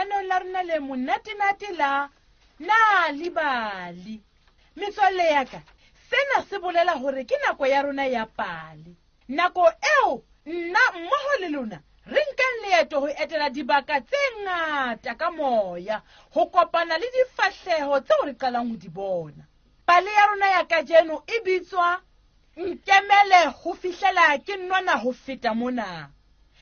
lenaneong la rona le monatenate la Nal'ibali. Metswalle ya ka, sena se bolela hore ke nako ya rona ya pale. Nako eo nna mmoho le lona re nkang leeto ho etela dibaka tse ngata ka moya, ho kopana le difahleho tseo re qalang ho di bona. Pale ya rona ya kajeno e bitswa Nkemele ho fihlela ke nona ho feta mona.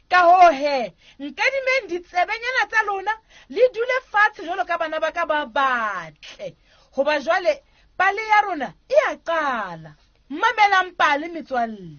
Ka hoo he, nkadimeng ditsebenyana tsa lona le dule fatshe jwalo ka bana ba ka ba batle. Hoba jwale pale ya rona e a qala. Mamelang pale metswalle.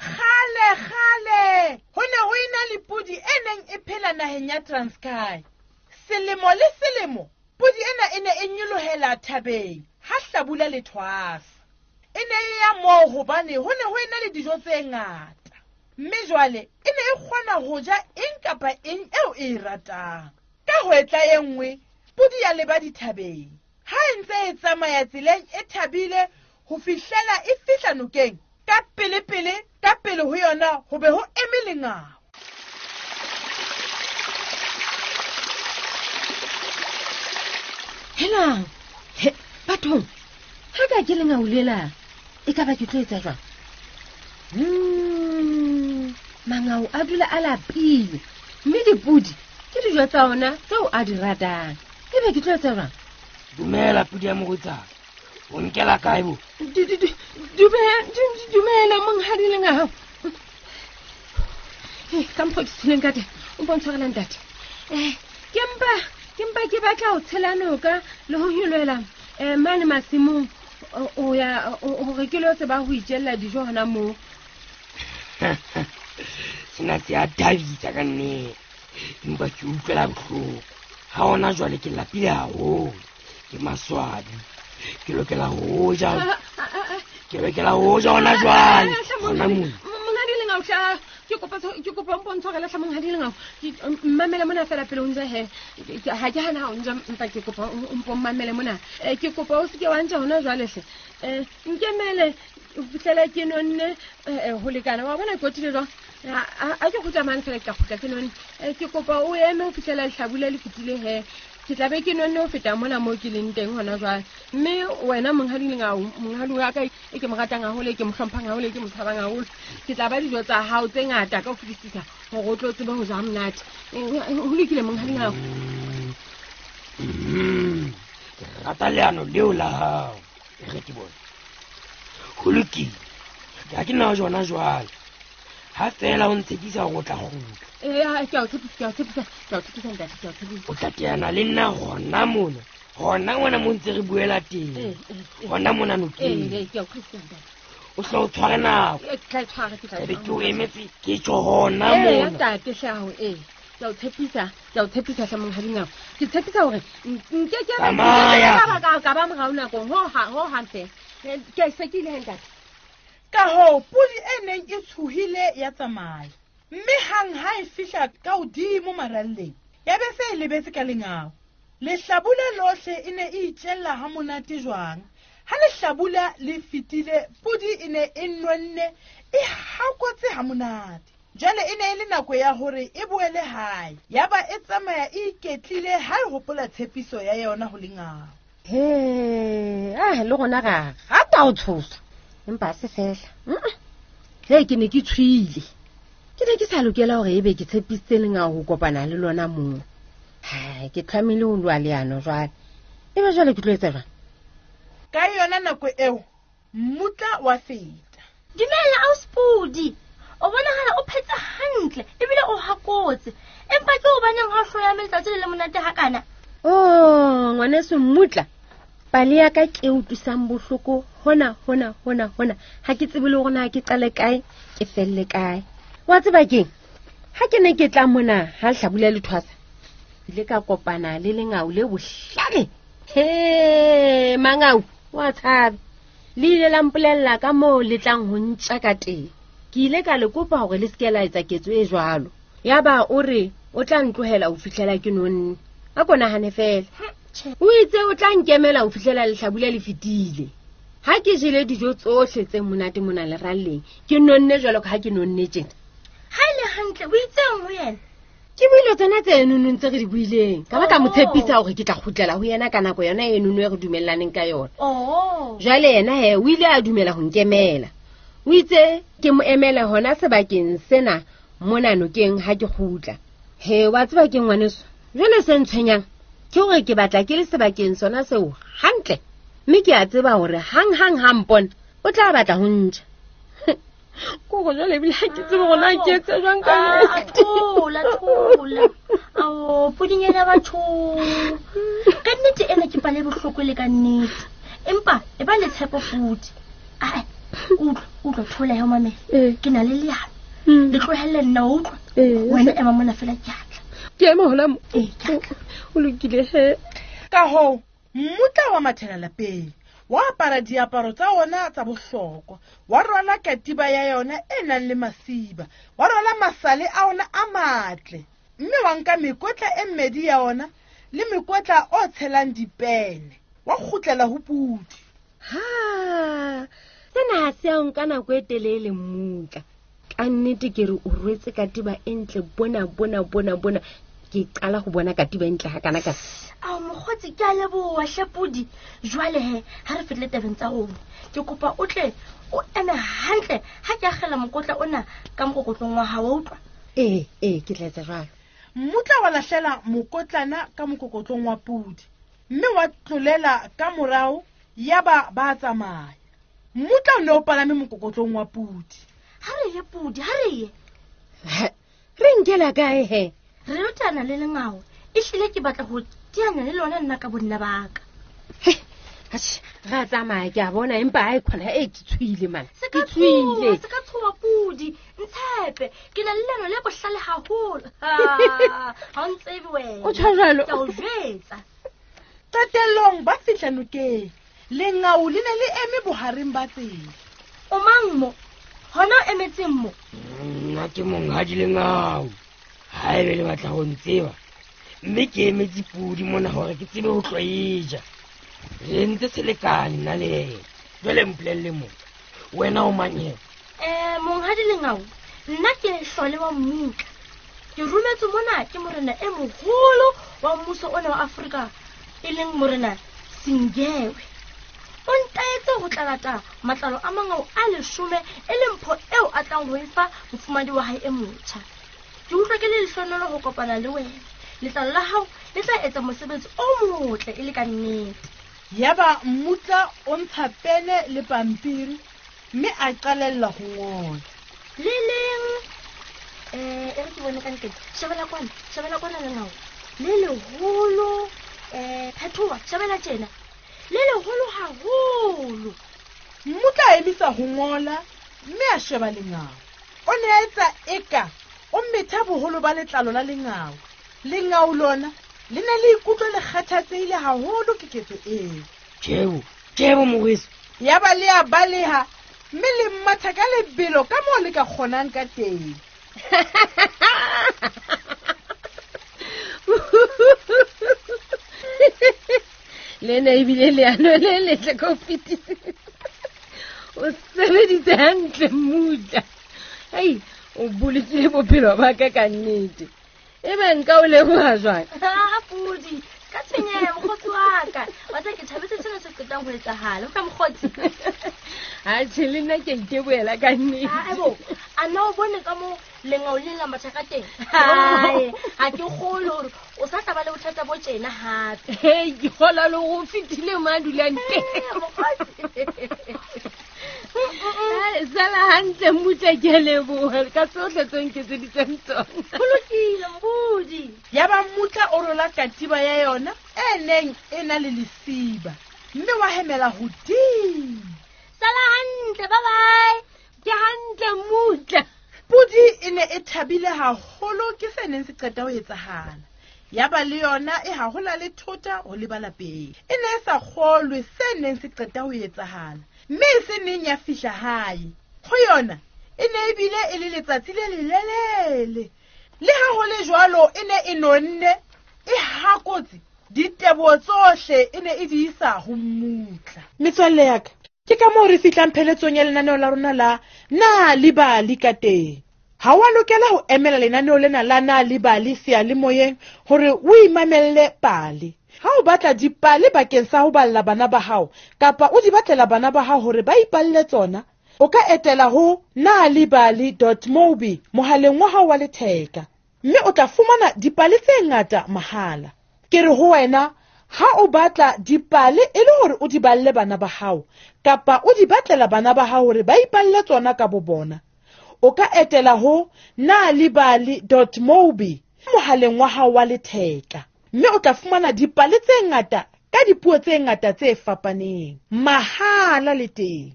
Kgale kgale ho ne ho ena le podi e neng e phela naheng ya Transkei. Selemo le selemo podi ena e ne e nyolohela thabeng ha hlabula le thwasa. E ne e ya moo hobane ho ne ho ena le dijo tse ngata. Mme jwale e ne e kgona ho ja eng kapa eng eo e e ratang. Ka hwetla e nngwe, podi ya leba dithabeng. Ha e ntse e tsamaya tseleng e thabile ho fihlela e fihla nokeng, ka pele-pele ka pele ho yona ho be ho eme lengau. Helang, he, bathong, ha ka ke lengau lela, e ka ba ke tlo etsa jwang? Mangau a dula a lapile, mme dipodi ke dijo tsa ona tseo a di ratang. E be ke tlo etsa jwang? Dumela podi ya morwetsana, o nkela kae bo? Dumela monghadi lengau. Ka mokgwa ke tsholeng ka teng, o mpo ntshwarela ntate. Ke mpa ke batla ho tshela noka le ho nyolohela mane masimong o ya hore ke lo tseba ho itjella dijo hona moo. Sena se a thabisa ka nnete, empa ke utlwela bohloko. Ha hona jwale ke lapile haholo, ke maswabi, ke lokela ho ja. Ke lokela ho ja hona jwale. Hona mona. Monghadi Lengau, tla, ke kopa ke kopa o mpontshwarele tlha monghadi Lengau. Ke, mmamele mona fela pele o nja he. Ha ke hana ha o nja, empa ke kopa o mpo mmamele mona. Ke kopa o seke wa nja hona jwale hle. Nkemele ho fihlela ke nonne, ho lekana. Wa bona ke otile jwang? A ke kgutla mane fela, ke tla kgutla ke nonne. Ke kopa o eme ho fihlela lehlabula le fetile he. Ke tla be ke nonne ho feta mona moo ke leng teng hona jwale. Mme wena monghadi Lengau, monghadi wa ka e ke mo ratang haholo, e ke mo hlomphang haholo, e ke mo tshabang haholo, ke tla ba dijo tsa hao tse ngata ka ho fetisisa hore o tlo tsebe ho ja monate. Ho lokile monghadi Lengau. Ke rata leano leo la hao. E re ke bone. Ho lokile. Ha ke na jona jwale. Ha fela o ntshepisa hore o tla kgutla. Ha, ke a o tshepisa, ke a o tshepisa, ke a o tshepisa, ntate, ke a o tshepisa. O tla teana le nna hona mona. Hona mona mo ntse re buela teng. Hona mona nokeng. Ke a o utlwisisa, ntate. O hle o tshware nako. Ke tla e tshwara, ke tla e Ebe ke o tshwara. emetse, ke tjho hona mona. Ntate, hle hao, Ke a o tshepisa, ke a o tshepisa hle monghadi Ngau. Ke tshepisa hore nke ke ba- Tsamaya. nke ke ba ka ba morao nakong, ho ha, ho hang feela. Ke se ke ile he, ntate. Ka hoo, podi e neng e tshohile ya tsamaya. Mme hang ha e fihla ka hodimo maralleng, ya be se e lebetse ka lengau. Lehlabula lohle e ne e itjella ha monate jwang. Ha lehlabula le fetile, podi e ne e nonne, e hakotse ha monate. Jwale e ne e le nako ya hore e boele hae. Yaba e tsamaya e iketlile ha e hopola tshepiso ya yona ho lengau. He, le rona ra rata ho tshosa. Empa ha se fela. He, ke ne ke tshwile. Ke ne ke sa lokela hore ebe ke tshepisitse lengau ho kopana le lona moo. Hai, ke tlamehile ho lwa leano jwale. Ebe jwale ke tlo etsa jwang? Ka yona nako eo, mmutla wa feta. Dumela ausi Podi. O bonahala o phetse hantle ebile o hakotse. Empa ke hobaneng ha o hloya letsatsi le le monate hakana? Oh, ngwaneso mmutla. Pale ya ka ke e utlwisang bohloko hona, hona, hona, hona. Ha ke tsebe le hore na ke qale kae, ke felle kae. Wa tseba keng? Ha ke ne ke tla mona ha hlabula le thwasa, ke ile ka kopana le lengau le bohlale. He, mangau. Wa tshabe. Le ile la mpolella ka moo le tlang ho ntja ka teng. Ke ile ka le kopa hore le se ke la etsa ketso e jwalo. Yaba o re o tla ntlohela ho fihlela ke nonne. A ko nahane fela. O itse o tla nkemela ho fihlela lehlabula le fetile. Ha ke jele dijo tsohle tse monate mona leralleng, ke nonne jwalo ka ha ke nonne tjena. Ha e le hantle o itseng ho yena? Ke buile tsona tse nonong tse re di buileng. Ka ba ka mo tshepisa hore ke tla kgutlela ho yena ka nako yona e nono e re dumellaneng ka yona. Jwale yena he o ile a dumela ho nkemela. O itse ke mo emele hona sebakeng sena mona nokeng ha ke kgutla. He wa tseba ke ngwaneso. Jwale se ntshwenyang ke hore ke batla ke le sebakeng sona seo hantle. Mme ke a tseba hore hang-hang ha mpona o tla batla ho ntja. Kore jwale ebile ha ke tsebe hore na ke etse jwang ka nnete. Thola, thola. Ao, pudinyana batho. Ka nnete ena ke pale bohloko le ka nnete. Empa e ba le tshepo futhi. Ai, utlwa, utlwa thola ya mamela. Ke na le leano. Le tlohelle nna o utlwa. Wena ema mona fela ke atla. Ke ema hona mo. Ee, ke atla. O lokile he. Ka hoo, mmutla wa mathela lapeng. Wa apara diaparo tsa ona tsa bohlokwa, wa rwala katiba ya yona e nang le masiba, wa rwala masale a ona a matle, mme wa nka mekotla e mmedi ya ona le mekotla o tshelang dipene, wa kgutlela ho pudi. Ha, sena ha se a nka nako e telele mmutla. Ka nnete ke re o rwetse katiba e ntle bona bona bona bona. Ke qala ho bona katiba e ntle hakana ka. Ao mokgotsi ke a leboha hle pudi. Jwale he ha re fihle tabeng tsa rona, ke kopa o tle o eme hantle ha ke akgela mokotla ona ka mokokotlong wa hao, wa utlwa? Ee, ee, ke tla etsa jwalo. Mmutla wa lahlela mokotlana ka mokokotlong wa pudi, mme wa tlolela ka morao yaba ba tsamaya. Mmutla o ne o palame mokokotlong wa pudi. Ha re ye pudi, ha re ye. Re nkela kae he? Re lotana le lengao. Ehlile ke batla ho teanya le lona nna ka bonna ba ka. Atjhe, ra tsamaya ke a bona empa ha e khona e ke tshohile man. Se Ke tshohile. Se ka tshoha pudi, ntshepe. Ke na le leano le bohlale haholo. Ha o ntsebe wena. O tjho jwalo. Ke a o jwetsa. Qetellong ba fihla nokeng. Lengau le ne le eme bohareng ba tsela. O mang mo? Hona o emetseng mo? Nna ke monghadi Lengau. Haebe le batla ho ntseba, mme ke emetse pudi mona hore ke tsebe ho tlo e ja. Re entse selekane nna le yena. Jwale mpolelle mo, wena o mang he? Monghadi Lengau, nna ke hlole wa mmutla. Ke rometswe mona ke morena e moholo wa mmuso ona wa Afrika, e leng morena Singewe. O ntaetse ho tla lata matlalo a mangau a 10 e leng mpho eo a tlang ho e fa mofumahadi wa hae e motjha. Ke utlwa ke le lehlohonolo ho kopana le wena. Letlalo la hao le tla etsa mosebetsi o motle e le ka nnete. Yaba mmutla o ntsha pene le pampiri mme a qalella ho ngola. Le leng, e re ke bone ka ntle. Shebela kwana, shebela kwana lengau. Le leholo, phethoha, shebela tjena. Le leholo haholo. Mmutla a emisa ho ngola mme a sheba lengau. O ne a etsa eka o metha boholo ba letlalo la lengau. Lengau lona le ne le ikutlwa le kgathatsehile haholo ke ketso eo. Tjebo, tjebo moweso. Yaba le a baleha mme le mmatha ka lebelo ka moo le ka kgonang ka teng. Le ne ebile leano le letle ka ho fetisisa. O sebeditse hantle mmutla. Hei, o bolokile bophelo ba ka ka nnete. Ebe nka o leboha jwang? Ha, pudi, ka tshwenyeha mokgotsi wa ka. Wa tseba ke thabetse sena se qetang ho etsahala. Utlwa mokgotsi. Atjhe, le nna ke a itebohela ka nnete. Aebo, a na o bone ka moo lengau le la matha ka teng? Hai, ha ke kgolwe hore o sa tla ba le bothata bo tjena hape. Hei, ke kgolwa le hore o fetile mo a dulang teng. Mokgotsi. Hai, sala hantle mmutla, ke a leboha ka tsohle tse nketseditseng tsona. Ho lokile, mpudi. Yaba mmutla o rola katiba ya yona e neng e na le lesiba, mme wa hemela hodimo. Sala hantle, bye bye. Ke hantle mmutla. Pudi e ne e thabile haholo ke se neng se qeta ho etsahala. Yaba le yona e hahola le thota ho leba lapeng. E ne e sa kgolwe se neng se qeta ho etsahala, mme e se neng ya fihla hae. Ho yona e ne e bile e le letsatsi le lelelele. Le ha ho le jwalo e ne e nonne, e hakotse, diteboho tsohle e ne e di isa ho mmutla. Metswalle ya ka, ke ka moo re fihlang pheletsong ya lenaneo la rona la Na le Bali ka teng. Ha wa lokela ho emela lenaneo lena la Na le Bali seyalemoyeng hore o imamelle pale. Ha o batla dipale bakeng sa ho balla bana ba hao kapa o di batlela bana ba hao hore ba ipalle tsona, o ka etela ho nalibali.mobi mohaleng wa hao wa letheka mme o tla fumana dipale tse ngata mahala. Ke re ho wena, ha o batla dipale e le hore o di balle bana ba hao kapa o di batlela bana ba hao hore ba ipalle tsona ka bobona, o ka etela ho nalibali.mobi mohaleng wa hao wa letheka mme o tla fumana dipale tse ngata ka dipuo tse ngata tse fapaneng mahala le teng.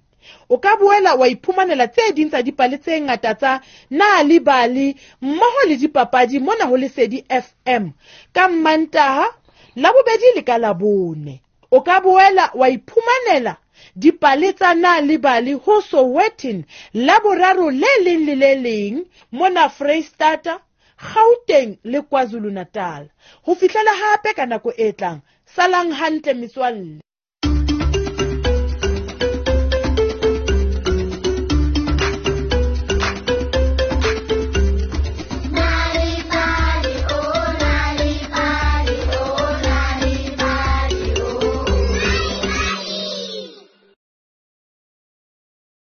O ka boela wa iphumanela tse ding tsa dipale tse ngata tsa Nal'ibali mmoho le dipapadi mona ho Lesedi FM ka Mmantaha, Labobedi le ka Labone. O ka boela wa iphumanela dipale tsa Nal'ibali ho Sowetan Laboraro le leng le le leng mona Freistata, Gauteng le KwaZulu-Natal. Ho fihlela hape ka nako e tlang, salang hantle metswalle.